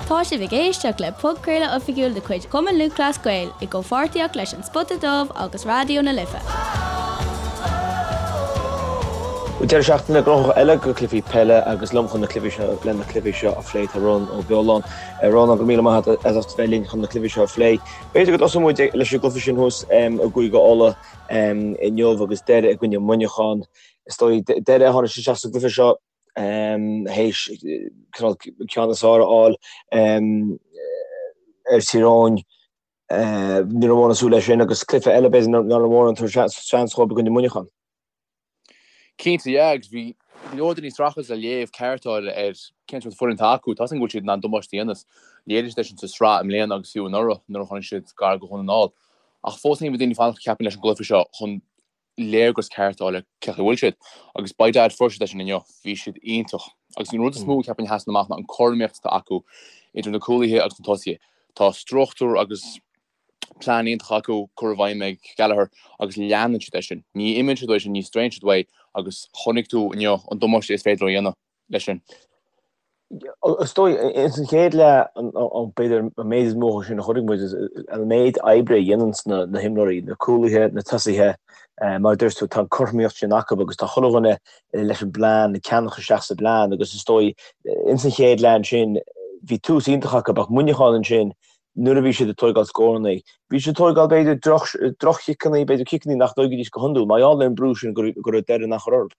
Tá sibh ag éisteacht le podchraoladh oifigiúil de chuid Chumann Lúthchleas Gael i gcomhpháirtíocht leis An Spota Dubh agus Raidió na Life. Deireadh seachtaine gnóthach eile go cluichí peile agus liom chun na cluichí seo le na cluichí seo a phlé tá Rónán Ó Beoláin. Rónán go míle maith agat as ucht bheith linn chun na cluichí seo a phlé. B'fhéidir go dtosóidh muid leis an gcluiche sin thuas i gCúige Uladh inniu agus Doire i gcoinne Muineachán. Is dóigh Doire a tháinig isteach sa gcluiche seo théis cineál ceann is fearr a fháil ar Tír Eoghain. Ní raibh mórán ag súil leis sin agus cluiche eile b'fhéidir nach raibh mórán ag tabhairt seans dhóibh i gcoinne Muineachán. Cinnte, yeah, agus bhí go leor daoine ag streachailt le léamh ceart a fháil ar cén sórt foireann atá acu. Tá a fhios againn go bhfuil siad in ann damáiste a dhéanamh. Léirigh siad é sin sa tsraith i mbliana agus fiú anuraidh nuair a tháinig siad gar do Dhún na nGall. Ach fós féin bhí daoine ag fanacht ceapaim leis an gcluiche seo chun léargas ceart a fháil ar cén chaoi a bhfuil siad. Agus by dad fuair siad é sin inniu. Bhí siad iontach. Agus an rud is mó ceapaim a sheasann amach ná an cothromaíocht atá acu idir na cúlaithe agus na tosaithe. Tá struchtúr agus plean iontach acu curtha i bhfeidhm ag Gallagher agus leanann siad é sin. Ní imíonn siad uaidh sin, ní straonn siad uaidh agus chonaic tú inniu an damáiste is féidir leo a dhéanamh leis sin. Is dóigh, ins an chéad leath, b'fhéidir an méid is mó sin a chonaic muid, an méid oibre a dhéananns na himreoirí, na cúlaithe, na tosaithe, mar a dúirt tú, tá an cothromaíocht sin acu agus tá chuile dhuine leis an bplean, ag ceannach isteach sa bplean agus is dóigh, ins an chéad leath ansin, bhí tús iontach acu ach Muineachán ansin, nuair a bhí siad ag tóigeáil scóranna, bhí siad ag tóigeáil b'fhéidir droch-chiceanna, b'fhéidir ciceanna nach dtóigfidís go hiondúil, mar gheall ar an brú sin go raibh Doire in ann a chur orthu.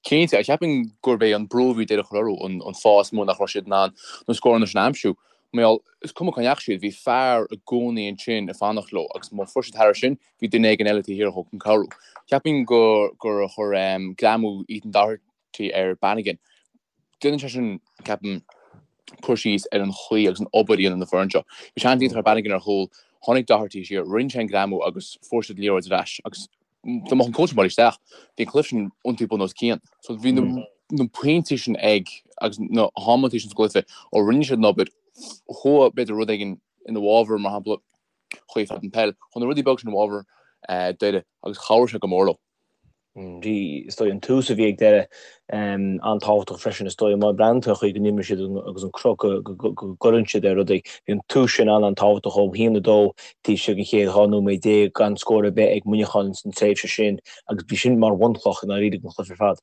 Cinnte, ach cheapfainn gurb é an brú a bhí Doire a chur orthu an fáth is mó nach raibh siad in ann na scóranna sin a aimsiú. Mar gheall, is cuma cá ndeachaigh siad, bhí fear i gcónaí ansin ag fanacht leo agus má fuair siad thairis sin, bhí duine éigin eile taobh thiar dhóibh chun cabhrú. Cheapfainn gur gur chuir greamú Ethan Doherty ar Bannigan, déanann sé sin, ceapaim, cur síos ar an chaoi agus an obair a dhéanann an foireann seo. Bhí seans iontach ar Bannigan ar chúl, tháinig Doherty siar, rinne sé an greamú agus fuair siad liathróid ar ais agus dá mbeadh an cúl sin buailte isteach, bhí an cluiche sin iontaithe bun os cionn. So bhí na pointí sin ag agus na hamantaí sin sa gcluiche ó rinne siad an obair, chuaigh b'fhéidir rud éigin ina bhfabhar, mar shampla, chuaigh fead an peil, chuaigh na rudaí beaga sin i bhfabhar Doire agus chabhraigh sé go mór leo. Bhí, is dóigh, an tús a bhí ag Doire an-tábhachtach freisin, is dóigh, má bhreathnaíonn tú ar an chaoi go n-imríonn siad agus an cruth go gcuireann siad ar rudaí. Bhí an tús sin an-an-tábhachtach ó 1-2 taobh istigh den chéad 12 nóiméad gan scór ar bith ag Muineachán san tréimhse sin agus bhí sin mar bhunchloch i ndáiríre don chluiche ar fad.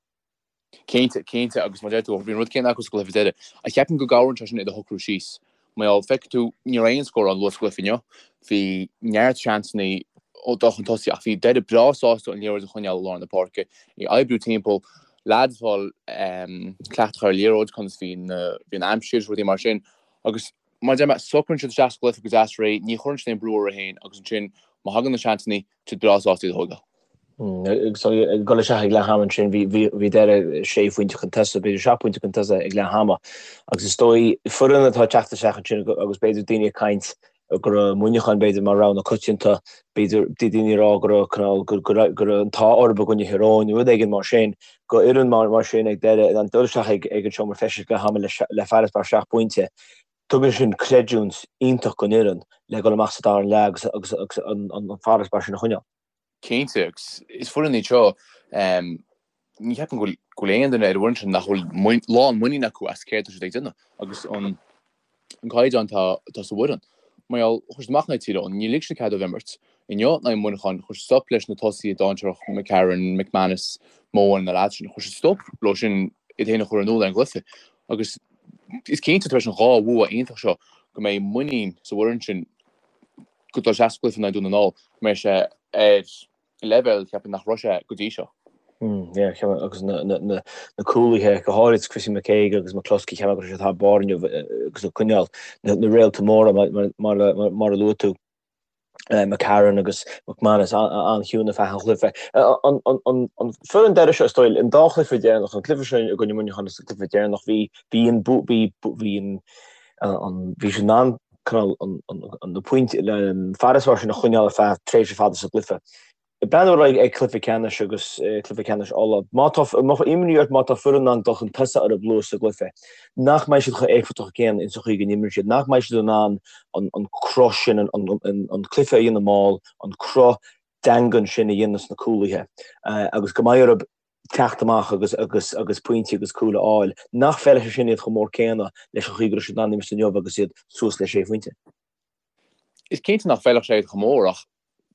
Cinnte, cinnte, agus mar a deir tú, bhí an rud céanna acu sa gcluiche deiridh. Ach cheapfainn go gcabhraíonn sé sin i do shocrú síos. Mar gheall, feicfidh tú, ní raibh aon scór ann luath sa gcluiche inniu. Bhí neart seansanna ag dul chun tosaigh ach bhí Doire breá sásta an liathróid a choinneáil i lár na páirce, í a oibriú timpeall, leaids ag fáil cleachtadh ar an liathróid, conas bhí bhí an aimsir, rudaí mar sin. Agus mar a deir mé, socraíonn siad isteach sa gcluiche go deas réidh, ní chuireann siad aon brú orthu féin agus ansin má thagann na seansanna, tá siad breá sásta iad a thógáil. Agus ag dul isteach ag leath ama ansin, bhí Doire sé phointe chun tosaigh, b'fhéidir seacht bpointe chun tosaigh ag leath ama. Agus is dóigh, foireann atá ag teacht isteach ansin agus b'fhéidir daoine ag caint go raibh Muineachán b'fhéidir mar rogha na coitianta, b'fhéidir daoine ag rá go raibh cineál, go raibh an t-ádh orthu i gcoinne Thír Eoghain, rud éigin mar sin, go fhoireann mar sin ag Doire, in ann dul isteach ag an seomra feistis ag leath ama le farasbarr seacht bpointe. Tugann sin creidiúint iontach don fhoireann le dul amach sa dara leath agus agus an farasbarr sin a choinneáil. Cinnte, agus is foireann iad seo, ní cheapaim go bhfuil aon duine ar an bhfoireann sin nach bhfuil lán muinín acu as céard atá siad ag déanamh agus an caighdeán atá sa bhfoireann. Mar gheall, chuir siad amach in aghaidh Tír Eoghain, níor lig siad cead dóibh imirt. Inniu in aghaidh Mhuineacháin, chuir siad stop leis na tosaithe dainséarach McCarron, McManus, Mohan, na leaids sin, chuir siad stop leo sin iad féin a chur in iúl ar an gcluiche. Agus is cinnte tar éis an dhá bhua iontach seo go mbeidh muinín sa bhfoireann sin go dul isteach sa gcluiche in aghaidh Dún na nGall, go mbeidh sé ar leibhéal cheapfainn nach raibh sé go dtí seo. Yeah, cheap agus na na na cúlaithe go háirid Chrissy McKaigue agus McCloskey cheap mé go raibh siad thar barr inniu agus ag coinneáil na na réalta móra mar mar mar mar a luaigh tú. McCarron agus McManus an-chiúin ar feadh an chluiche. An foireann Doire seo is dóigh, an dá chluiche deireanach, an cluiche seo i gcoinne Muineachán agus an cluiche deireanach, bhí bhí an bhí bhí an an bhí siad in ann cineál an an na pointí an farasbarr sin a choinneáil ar feadh tréimhse fada sa gcluiche. Ag breathnú ar aghaidh ag cluiche ceannais agus cluiche ceannais Uladh, má tá imní ort má tá foireann in ann dul chun tosaigh orthu luath sa gcluiche, nach mbeidh siad chomh éifeachtach céanna ins an chaoi go n-imríonn siad, nach mbeidh siad in ann an cruth sin, an cluiche a dhéanamh mall, an cruth daingean sin a dhéanamh sna cúlaithe agus go mbeidh orthu. teacht amach agus agus agus pointí agus cúil a fháil, nach bhfeilfeadh sé sin iad chomh mór céanna leis an chaoi go raibh siad in ann imirt inniu agus iad suas le sé phointe. Is cinnte nach bhfeilfeadh sé iad chomh mór ach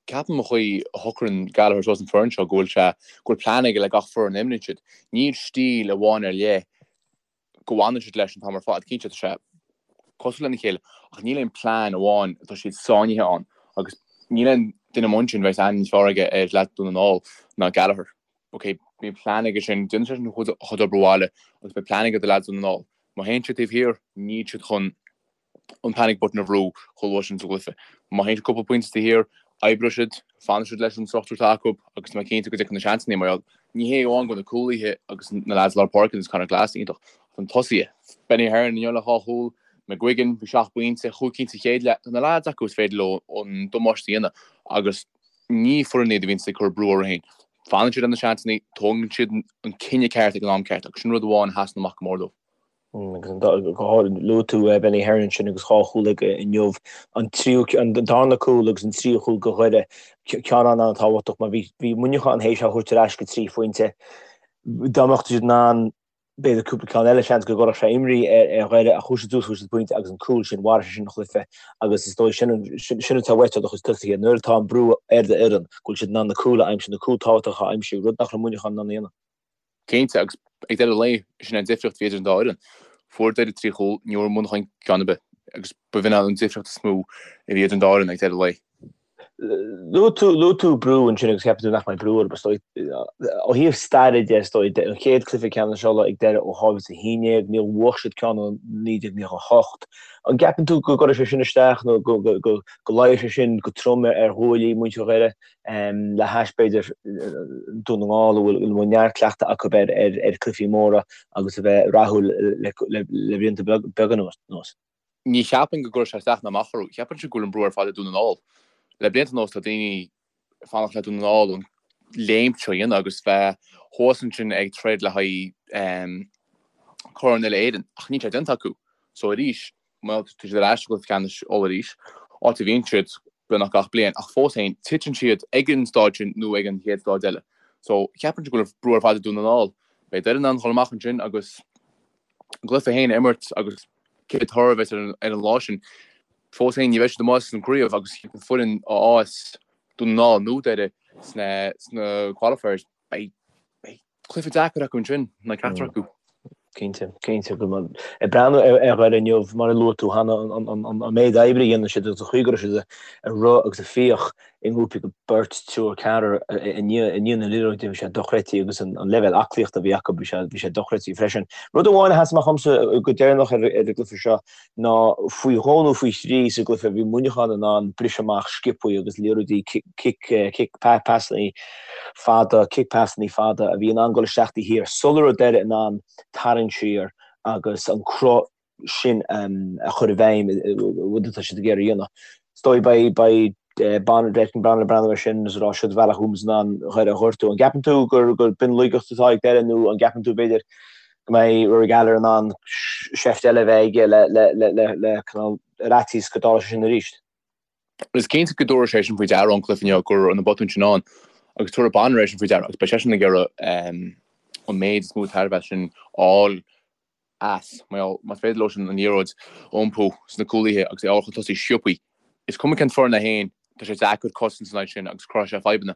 ceapaim an chaoi a shocraíonn Gallagher suas an foireann seo go bhfuil sé go bhfuil plean aige le gach foireann a imríonn siad. Níl stíl amháin ar leith go bhfanann siad leis an t-am ar fad. Cinnte tá sé cosúil lena chéile ach níl aon plean amháin atá siad sáinnithe ann agus níl aon duine amuigh ansin a bheas aithne níos fearr aige ar leaids Dhún na nGall ná Gallagher. Ok, bíonn plean aige sin, déanann sé sin a chuid obair bhaile agus beidh plean aige do leaids Dhún na nGall. Má théann siad taobh thiar, níl siad chun an panic button a bhrú chomh luath sin sa gcluiche. Má théann siad cúpla pointe taobh thiar, oibreoidh siad, fanfaidh siad leis an struchtúr atá acu agus tá mé cinnte go dtiocfaidh na seansanna mar gheall. Ní hé amháin go bhfuil na cúlaithe agus na leaids lár páirce agus Conor Glass iontach, ach na tosaithe. Benny Heron inniu le dhá chúl, McGuigan, bhí seacht bpointe, chúig cinn sa chéad leath. Tá na leaids acu is féidir leo an damáiste a dhéanamh agus ní foireann iad a bhíonns ag cur brú orthu féin. Fanann siad ar na seansanna, tógann siad an cinneadh ceart ag an am ceart agus sin rud amháin a sheasann amach go mór dóibh. Agus go háirithe, luaigh tú Benny Heron ansin agus dhá chúl aige inniu, an tríú, an darna cúl agus an tríú cúl do Dhoire, ceann an-an-tábhachtach mar bhí, bhí Muineachán théis é a thabhairt ar ais go trí phointe. Dá mbeadh siad in ann b'fhéidir cúpla ceann eile, seans go gcuirfeadh sé imní ar Dhoire ach chuaigh siad suas, fuair siad pointe agus an cúl sin, mharaigh sé sin an chluiche agus is dóigh sin, sin atá uait ó do chuid tosaithe nuair atá an brú ar d'fhoireann go bhfuil siad in ann na cúil a aimsiú, na cúil tábhachtacha a aimsiú, rud nach raibh Muineachán in ann a dhéanamh. Cinnte, agus ag deireadh an lae, sin é an difríocht a bhí idir an dá fhoireann. Fuair Doire trí chúl, ní bhfuair Muineachán ceann ar bith, agus b'in an difríocht is mó a bhí idir an dá fhoireann ag deireadh an lae. Luaigh tú, luaigh tú brú ansin agus ceapann tú nach mbeidh brú orthu, is dóigh. Ó thaobh staire de, is dóigh, an chéad cluiche ceannais Uladh ag Doire ó 2011, níor bhuaigh siad ceann ó 1998. An gceapann tú go gcuirfidh sé sin isteach nó go, go, go, go luífidh sé sin go trom ar ghuaillí muintir Dhoire? Le hais, b'fhéidir, Dún na nGall, a bhfuil neart cleachtadh acu ar chluichí móra agus a bheith rathúil le blianta beaga anuas. Ní cheapaim go gcuirfidh sé isteach ná amach orthu. Ceapaimse go bhfuil an brú ar fad ar Dún na nGall. Le blianta anuas tá daoine ag fanacht le Dún na nGall an léim seo a dhéanamh agus bheith thuas ansin ag troid le haghaidh Corn Uile-Éireann ach níl sé déanta acu. So arís, Bhuel, tá siad ar ais i gcluiche ceannais Uladh arís, áit a bhíonn siad beagnach gach bliain, ach fós féin, titeann siad ag an stáid sin nó ag an chéad stáid eile. So, ceapaimse go bhfuil brú ar fad ar Dún na nGall. Beidh Doire in ann dhul amach ansin agus a gcluiche féin a imirt agus cé toradh a bheas ar an lá sin, fós féin ní bheidh siad amuigh as an gcraobh agus an foireann a fhaigheas Dún na nGall nó Doire sna sna qualifiers, beidh cluiche deacair acu ansin, ná ceachtar acu. Cinnte, cinnte. Ag breathnú ar Dhoire inniu, mar a luaigh tú cheana, an méid oibre a dhéanann siad agus an chaoi go raibh siad ag rith agus ag fiach i ngrúpaí de beirt, triúr, ceathrar i ndiaidh na liathróide, bhí sé dochreidte agus an leibhéal aclaíochta a bhí acu, bhí sé, bhí sé dochreidte freisin. Rud amháin a sheas amach dhomsa go deireanach ar an gcluiche seo ná faoi dhó nó faoi thrí sa gcluiche bhí Muineachán in ann briseadh amach sciobthaí agus liathróidí cic, cic, pasanna fada, cic pasanna fada a bhí in ann dul isteach taobh thiar sula raibh Doire in ann tarraingt siar agus an cruth sin a chur i bhfeidhm, rud atá siad ag iarraidh a dhéanamh. Is dóigh beidh, beidh Bonner, Declan Bonner ag breathnú air sin agus ag rá siod bealach a bhfuil muid in ann Doire a ghortú. An gceapann tú gur, gur b'in laigeacht atá ag Doire nó an gceapann tú b'fhéidir go mbeidh Rory Gallagher in ann seift eile a bheith aige le, le, le, le, le cineál ar fhaitíos go dtarlódh sé sin arís? Is cinnte go dtabharfaidh sé sin faoi deara ón gcluiche inniu go raibh na botúin sin ann agus tabharfaidh Bonner é sin faoi deara agus beidh seisean ag iarraidh an méid is mó tairbhe as sin a fháil as. Mar más féidir leo sin an liathróid a iompú sna cúlaithe agus é a fháil chun tosaigh sciobthaí, is cuma cén foireann é féin, tá sé deacair cosaint san áit sin agus cruthóidh sé fadhbanna.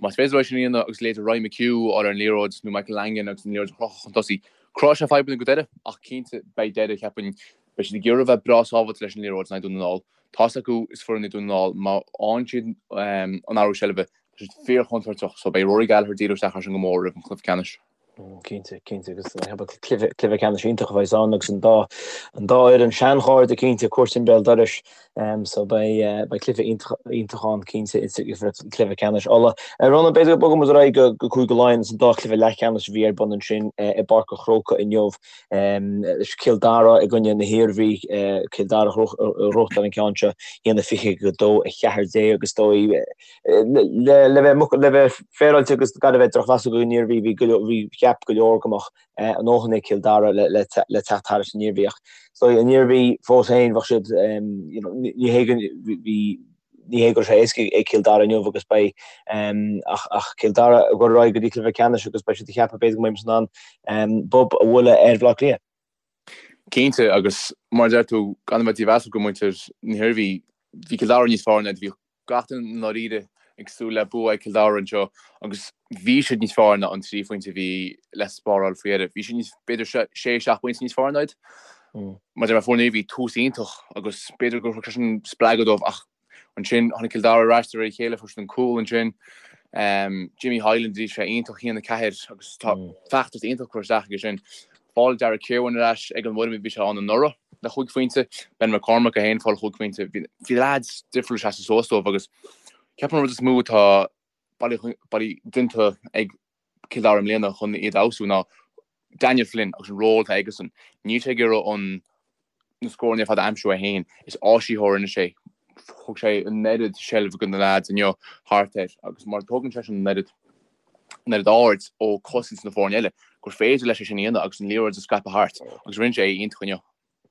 Más féidir leo é sin a dhéanamh agus leithéid Ryan McHugh a fháil ar an liathróid nó Michael Langan agus an liathróid a chrochadh chun tosaigh, cruthóidh sé fadhbanna go Doire ach cinnte beidh Doire, cheapfainn, beidh siad ag iarraidh a bheith breá sábháilte leis an liathróid in aghaidh Dún na nGall. Tá's acu is foireann í Dún na nGall, má fhaigheann siad an athrú seilbhe, tá siad fíor-chontúirteach so beidh Rory Gallagher ag díriú isteach air sin go mór roimh an chluiche ceannais. Cinnte, cinnte agus cluiche ceannais iontach a bheas ann agus an dá an dá fhoireann seanchairde cinnte cuairt i mbéal dorais so beidh beidh cluiche iontach iontach ann cinnte cluiche ceannais Uladh. Ronan b'fhéidir go mbogfaidh muid ar aghaidh go go Cúige Laighean agus an dá chluiche leathcheannais a bhí ar bun ansin i bPáirc an Chrócaigh inniu Cill Dara i gcoinne na hIarmhí Cill Dara a ghnóthachtáil an ceann seo 1-20 go 2-14 agus is dóigh Le bheith le bheith féaráilte agus gan a bheith drochmheasach don Iarmhí, bhí go leor, bhí, cheap go leor go mbeadh a ndóthain ag Cill Dara le le le teacht thairis an Iarmhí ach is dóigh an Iarmhí fós féin bheadh siad you know ní hé go bhí. Ní hé go raibh sé éasca ag Cill Dara inniu agus beidh ach ach Cill Dara ag dul ar aghaidh go dtí cluiche ceannais agus beidh siad ag ceapadh b'fhéidir go mbeidh muid in ann bob a bhualadh ar Bhaile Átha Cliath. Cinnte, agus mar a deir tú, gan a bheith dímheasach go muintir na hIarmhí, bhí Cill Dara níos fearr ná iad, bhí gach duine i ndáiríre ag súil le bua ag Cill Dara anseo agus bhí siad níos fearr ná an 3 phointe a bhí le spáráil faoi dheireadh. Bhí siad níos, b'fhéidir 6, 7 bpointe níos fearr ná iad. Mar a deir mé, fuair an Iarmhí tús iontach agus b'fhéidir gur thug sé sin spreagadh dóibh ach Ansin tháinig Cill Dara ar ais de réir a chéile, fuair siad an cúl ansin. Jimmy Hyland, bhí sé iontach, 1-4 agus tá feachtas iontach curtha isteach aige sin. Fáil Darragh Kirwan ar ais ag an bhfoirm a bhí sé ann anuraidh le chúig phointe. Ben McCormack é féin ag fáil chúig phointe. Bhí leaids difriúla ag seasamh suas dóibh agus ceapaim an rud is mó atá bailí déanta ag Cill Dara i mbliana chun iad a fheabhsú ná Daniel Flynn agus an ról atá aigesan. Níl sé ag iarraidh an na scóranna ar fad a aimsiú é féin. Is áisitheoir anois é. Thug sé an oiread seilbh do na leaids inniu thart air agus mar tógann seisean an oiread an oiread aird ó cosaint na foirne eile gur féidir leis é sin a dhéanamh agus an liathróid a scaipeadh thart agus rinne sé é iontach inniu.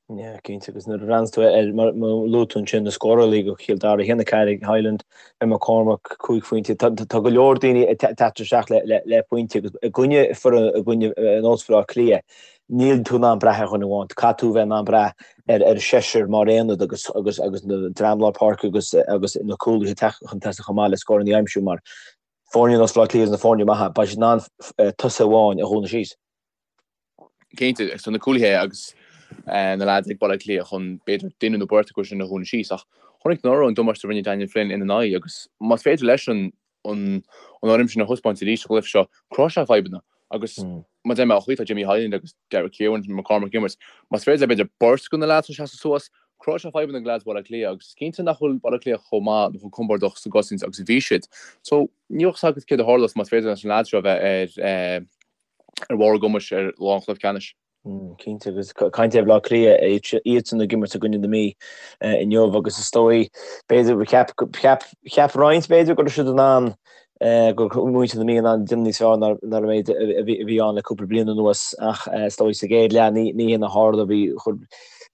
Yeah, cinnte, agus nuair a bhreathnaíonn tú ar, mar a luaigh tú ansin, na scórálaithe do Chill Dara, 1-4 ag Hyland, Ben McCormack, 5 phointe, tá go leor daoine ag teacht isteach le pointe agus i gcoinne foireann, i gcoinne ar nós Bhaile Átha Cliath, níl tú in ann brath ar dhuine amháin, caithfidh tú bheith in ann brath ar ar seisear mar aonad agus agus agus na dream lár páirce agus agus na cúlaithe teacht chun tosaigh chomh maith le scóranna a aimsiú mar foirne ar nós Bhaile Átha Cliath agus na foirne maithe, beidh siad in ann tosaí amháin a dhúnadh síos. Cinnte, agus tá na cúlaithe agus na leaids ag Baile Átha Cliath chun b'fhéidir duine nó beirt acu sin a dhúnadh síos ach chonaic anuraidh an damáiste a rinne Daniel Flynn ina n-aghaidh agus más féidir leis an an fhoirm sin a thaispeáint arís sa gcluiche seo, cruthóidh sé fadhbanna agus mar a deir mé, an chaoi atá Jimmy Hyland agus Derek Kirwan, McCormack ag imirt, más féidir le b'fhéidir beirt de na leaids seo seasamh suas, cruthóidh sé fadhbanna do leaids Bhaile Átha Cliath agus is cinnte nach bhfuil Baile Átha Cliath chomh maith nó chomh compordach sa gcosaint agus a bhí siad. So níl a fhios agat céard a tharlós más féidir leis na leaids seo a bheith ar ar bharr a gcumais ar lá an chluiche ceannais. Cinnte, agus caint ar Bhaile Átha Cliath, iadsan ag imirt i gcoinne na Mí inniu agus is dóigh, b'fhéidir, cheap, cheap, cheap roinnt b'fhéidir go raibh siad in ann, go raibh muintir na Mí in ann déanamh níos fearr ná an méid a bhí ann le cúpla bliain anuas ach is dóigh sa gcéad leath ní ní hin a tharla, bhí,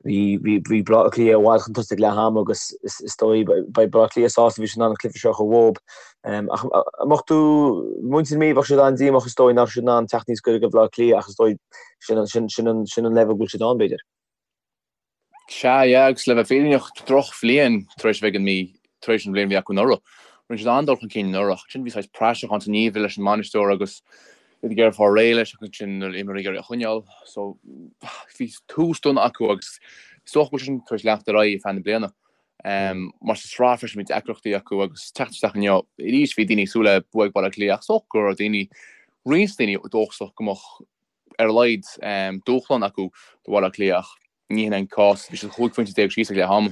bhí, bhí, bhí Baile Átha Cliath i bhfad chun tosaigh ag leath ama agus is dóigh beidh Baile Átha Cliath sásta bhí siad in ann an cluiche seo a chur uathu. Ach an mbeadh tú, muintir na Mí, bheadh siad an-díomách is dóigh nach raibh siad in ann teacht níos gaire do Bhaile Átha Cliath ach is dóigh sin, sin, sin an, sin an leibhéal go bhfuil siad ann, b'fhéidir. Sea, yeah, agus le bheith fírinneach, drochbhliain tar éis a bheith ag an Mí, tar éis an bhliain a bhí acu anuraidh. Rinne siad an-dul chun cinn anuraidh ach ansin bhí saghas praiseach ann san ngeimhreadh leis an mbainisteoir agus iad ag iarraidh fáil réidh leis agus ansin na himreoirí ag iarraidh a choinneáil. So bhí tús dona acu agus is dócha go bhfuil sé sin tar éis leanacht ar aghaidh ar feadh na bliana. Mar sa tsraith freisin bhí deacrachtaí acu agus teacht isteach inniu arís bhí daoine ag súil le bua ag Baile Átha Cliath ach is dócha go raibh daoine, roinnt daoine dóchasach go mbeadh ar a laghad dúshlán acu do Bhaile Átha Cliath ach ní hin an cás, bhí siad 15 phointe síos ag leath ama.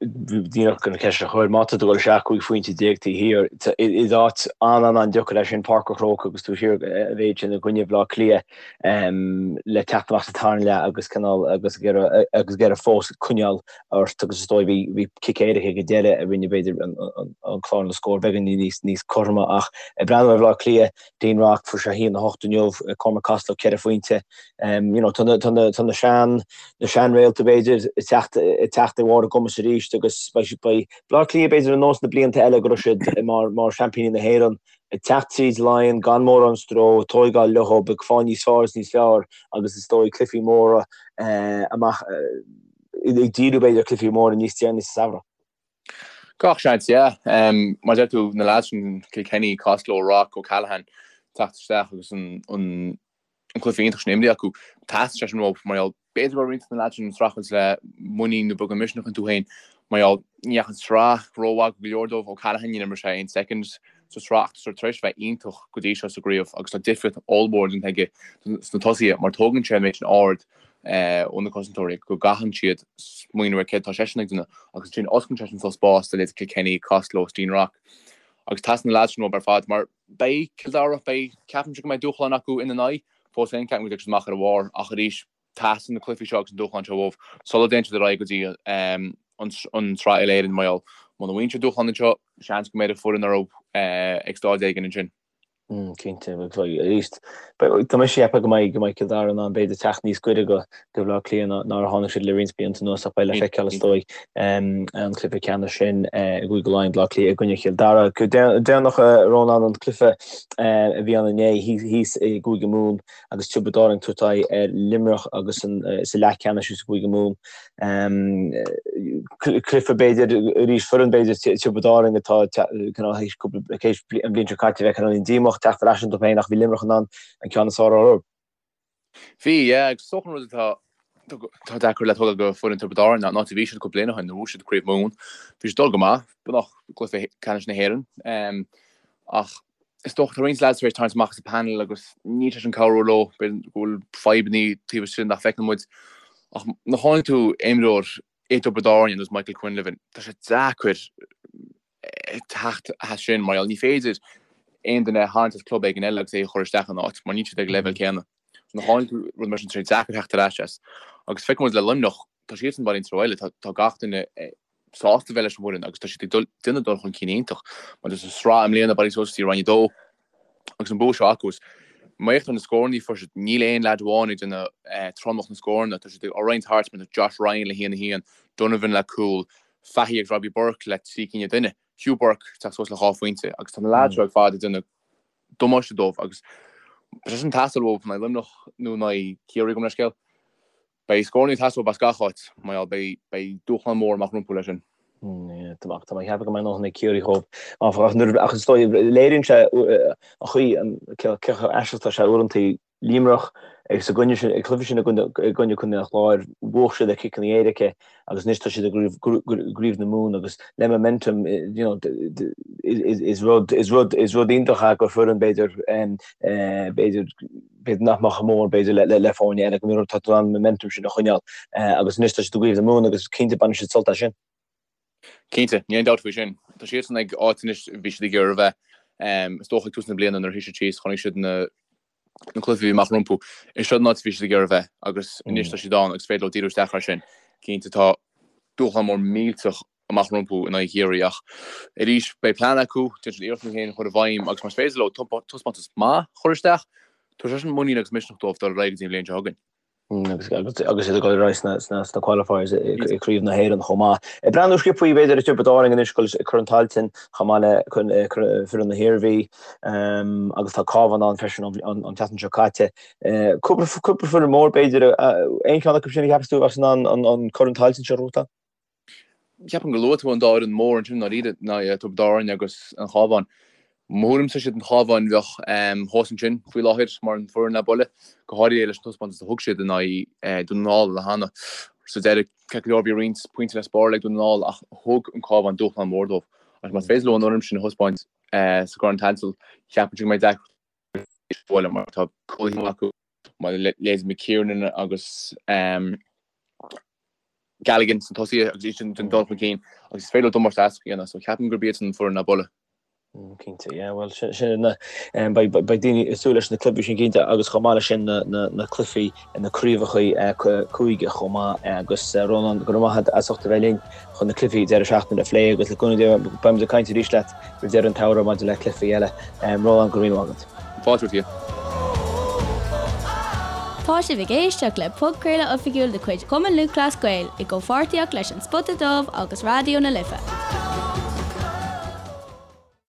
Díreach chun an cheist a chur, má tá tú ag dul isteach 15 phointe taobh thiar, is áit an-an-an-deacair é sin Páirc an Chrócaigh agus tú thiar a mhéid sin i gcoinne Bhaile Átha Cliath. le teacht amach sa tarna leath agus cineál agus ag iarraidh agus ag iarraidh fós coinneáil ort agus is dóigh bhí bhí cic éirice ag an deireadh a rinne b'fhéidir an an clár na scór beagáinín níos níos cothroime ach ag breathnú ar Bhaile Átha Cliath Dean Rock fuair sé 1-8 inniu Cormac Costello 4 phointe you know tá na tá na tá na sean na seanréalta b'fhéidir ag teacht ag teacht ar bharr a gcumas arís agus beidh beidh Baile Átha Cliath b'fhéidir ar nós na blianta eile go raibh siad mar mar seaimpíní na hÉireann ag teacht tríd Laighean gan mórán stró, ag tóigeáil leo, ag fáil níos fearr is níos fearr agus is dóigh cluichí móra amach, ag díriú b'fhéidir ar chluichí móra níos deireanaí sa samhradh. Gach seans, yeah. Mar a deir tú, na lads sin, Kilkenny, Costello, Rock, O'Callaghan, teacht isteach agus an an cluiche iontach sin imrithe acu. Theastaigh sé sin uathu mar gheall, b'fhéidir go raibh roinnt de na leaids sin ag streachailt le muinín nó beagán misneach iontu féin mar gheall, ní dheachaigh an tsraith rómhaith go leor dóibh. O'Callaghan, níor imir sé aon soicind sa tsraith ach tá sé tar éis a bheith iontach go dtí seo sa gcraobh agus tá difríocht ollmhór déanta aige sna tosaithe mar tógann sé an méid sin aird ó na cosantóirí go gcaitheann siad smaoineamh ar céard atá seisean ag déanamh agus ansin osclaíonn sé sin suas spás do leithéidí Kilkenny, Costello, Dean Rock agus teastaíonn na leaids sin uathu ar fad mar Beidh Cill Dara, beidh, ceapaimse go mbeidh dúshlán acu ina n-aghaidh. Fós féin, ceapaim go dtiocfaidh siad amach ar a bharr ach arís, teastaíonn na cluichí seo agus an dúshlán seo uathu sula dtéann siad ar aghaidh go dtí an tSraith Uile-Éireann mar gheall muna bhfaigheann siad dúshlán anseo, seans go mbeidh foireann orthu ag staid éigin ansin. Cinnte, arís, tá mise ag ceapadh go mbeidh go mbeidh Cill Dara in ann b'fhéidir teacht níos gaire do Bhaile Átha Cliath ná mar a tháinig siad le roinnt blianta anuas ach beidh le feiceáil is dóigh an cluiche ceannais sin i gCúige Laighean, Baile Átha Cliath i gcoinne Chill Dara. Go déanach Rónán an cluiche a bhí ann inné thíos i gCúige Mumhan agus Tiobraid Árann ag tabhairt aghaidh ar Luimneach agus sa leathcheannais i gCúige Mumhan. Cluiche b'fhéidir arís foireann b'fhéidir Tiobraid Árann atá cineál théis cúpla théis an bhliain seo caite bheith cineál díomách teacht ar ais iontu féin ach bhí Luimneach in ann an ceann is fearr orthu. Bhí, yeah, agus is dócha an rud atá tá deacair le tógáil go foireann Tiobraid Árann ná an áit a bhí siad cúpla bliain ó shin, nuair a bhuaigh siad Craobh Mumhan. Bhí siad ag dul go maith, beagnach gcluiche ceannais na hÉireann. Ach is dócha tá roinnt lads tar éis tarraingt amach as an panel agus níl sé sin cabhrú leo, b'fhéidir go bhfuil fadhbanna taobh istigh nach bhfeiceann muid. Ach nuair a chailleann tú imreoir i dTiobraid Árann ar nós Michael Quinlivan, tá sé deacair teacht as sin mar gheall ní féidir aon duine a tharraingt as club éigin eile agus é a chur isteach ina áit mar níl siad ag an leibhéal céanna. Nuair a chailleann tú rud mar sin tá sé deacair teacht ar ais as. Agus feiceann muid le Luimneach, tá siadsan bailithe an treo eile, tá gach duine sásta bheith leis an bhfoireann agus tá siad ag dul déanamh dul chun cinn iontach. Mar sa sraith i mbliana bailithe suas go dtí Roinn 2 agus an bua seo acu. Má fhéachtar na scóranna a fuair siad, níl aon leaid amháin ag déanamh tromlach na scóranna. Tá siad á roinnt thart mar tá Josh Ryan le haon a haon, Donovan le cúl, Fahy agus Robbie Burke le 3 cinn an duine, Hugh Burke ag teacht suas le 2 phointe agus tá na leaids seo ar fad ag déanamh damáiste dóibh agus tá sé sin ag teastáil uathu in aghaidh Luimneach nó in aghaidh Ciarraí gabh mo leithscéal. Beidh scóranna ag teastáil as gach áit, mar gheall beidh beidh dúshlán mór amach rompu leis sin. Tá mé ag ceapadh go mbeidh a ndóthain ag Ciarraí dhóibh, áfach, ach nuair ach is dóigh léiríonn sé an chaoi an cé chomh aisteach atá sé uaireanta Luimneach agus i gcoinne sin ag cluiche sin i gcoinne i gcoinne Contae an Chláir bhuaigh siad ar chiceanna éirice agus anois tá siad i gCraobh na Mumhan agus le momentum you know is rud is rud is rud iontach é gur foireann b'fhéidir b'fhéidir b'fhéidir nach mbeadh chomh mór b'fhéidir le le foirne eile go mbíonn tá tú in ann an momentum sin a choinneáil agus anois tá siad i gCraobh na Mumhan agus cinnte bainfidh siad sult as sin. Cinnte, níl aon dabht faoi sin. Tá siadsan ag áit anois a bhí siad ag iarraidh a bheith. Is dócha ag tús na bliana nuair a shuigh siad síos chonaic siad na na cluichí a bhí amach rompu. Is seo an áit a bhí siad ag iarraidh a bheith agus anois tá siad ann agus féidir leo díriú isteach air sin. Cinnte tá dúshlán mór millteach amach rompu in aghaidh Chiarraí ach arís beidh plean acu, déanfaidh siad iarracht é féin a chur i bhfeidhm agus más féidir leo taispeántas maith a chur isteach, tabharfaidh sé sin muinín agus misneach dóibh dul ar aghaidh go dtí an bhliain seo chugainn. Agus agus iad ag dul ar aghaidh sna sna sna qualifiers i gCraobh na hÉireann chomh maith. Ag breathnú sciobtha b'fhéidir ar Tiobraid Árann anois ag dul Corn Tailteann chomh maith le foireann na hIarmhí agus tá Cabhán ann freisin an tseachtain seo caite. Cúpla cúpla foireann mór b'fhéidir aon cheann acu sin a cheapas tú a bheas in ann an Corn Tailteann seo a ghnóthachtáil? Ceapaim gur luaigh tú an dá fhoireann mór ansin ndáiríre, ná Tiobraid Árann agus an Chabhán. Mo thuairimse is iad an Chabhán a bheadh thuas ansin faoi láthair mar an foireann le bualadh, go háirithe leis an taispeántas a thug siad in aghaidh Dún na nGall cheana. Sa deireadh, ceart go leor bhí roinnt pointí le spáráil ag Dún na nGall ach thug an Cabhán dúshlán mór dóibh. Agus más féidir leo an fhoirm sin a thaispeáint sa gCorn Tailteann, ceapaimse go mbeidh deacracht bualadh mar tá cúlaithe acu mar leithéid McKiernan agus Galligan sna tosaithe agus iad sin ag dul chun cinn agus is féidir leo damáiste a dhéanamh so ceapaim gurb iad an foireann le bualadh. Cinnte, yeah, bhuel sin sin na beidh beidh daoine ag súil leis na cluichí sin cinnte agus chomh maith leis sin na na na cluichí na craobhacha cúige chomh maith agus Rónán go raibh maith agat as ucht a bheith linn chun na cluichí deireadh seachtaine a phlé agus le cúnamh Dé beimid ag caint arís leat roimh deireadh an tsamhraidh maidir le cluichí eile. Rónán, go raibh míle maith agat. Fáilte romhat. Tá sibh ag éisteacht le podchraoladh oifigiúil de chuid Chumann Lúthchleas Gael i gcomhpháirtíocht leis An Spota Dubh agus Raidió na Life.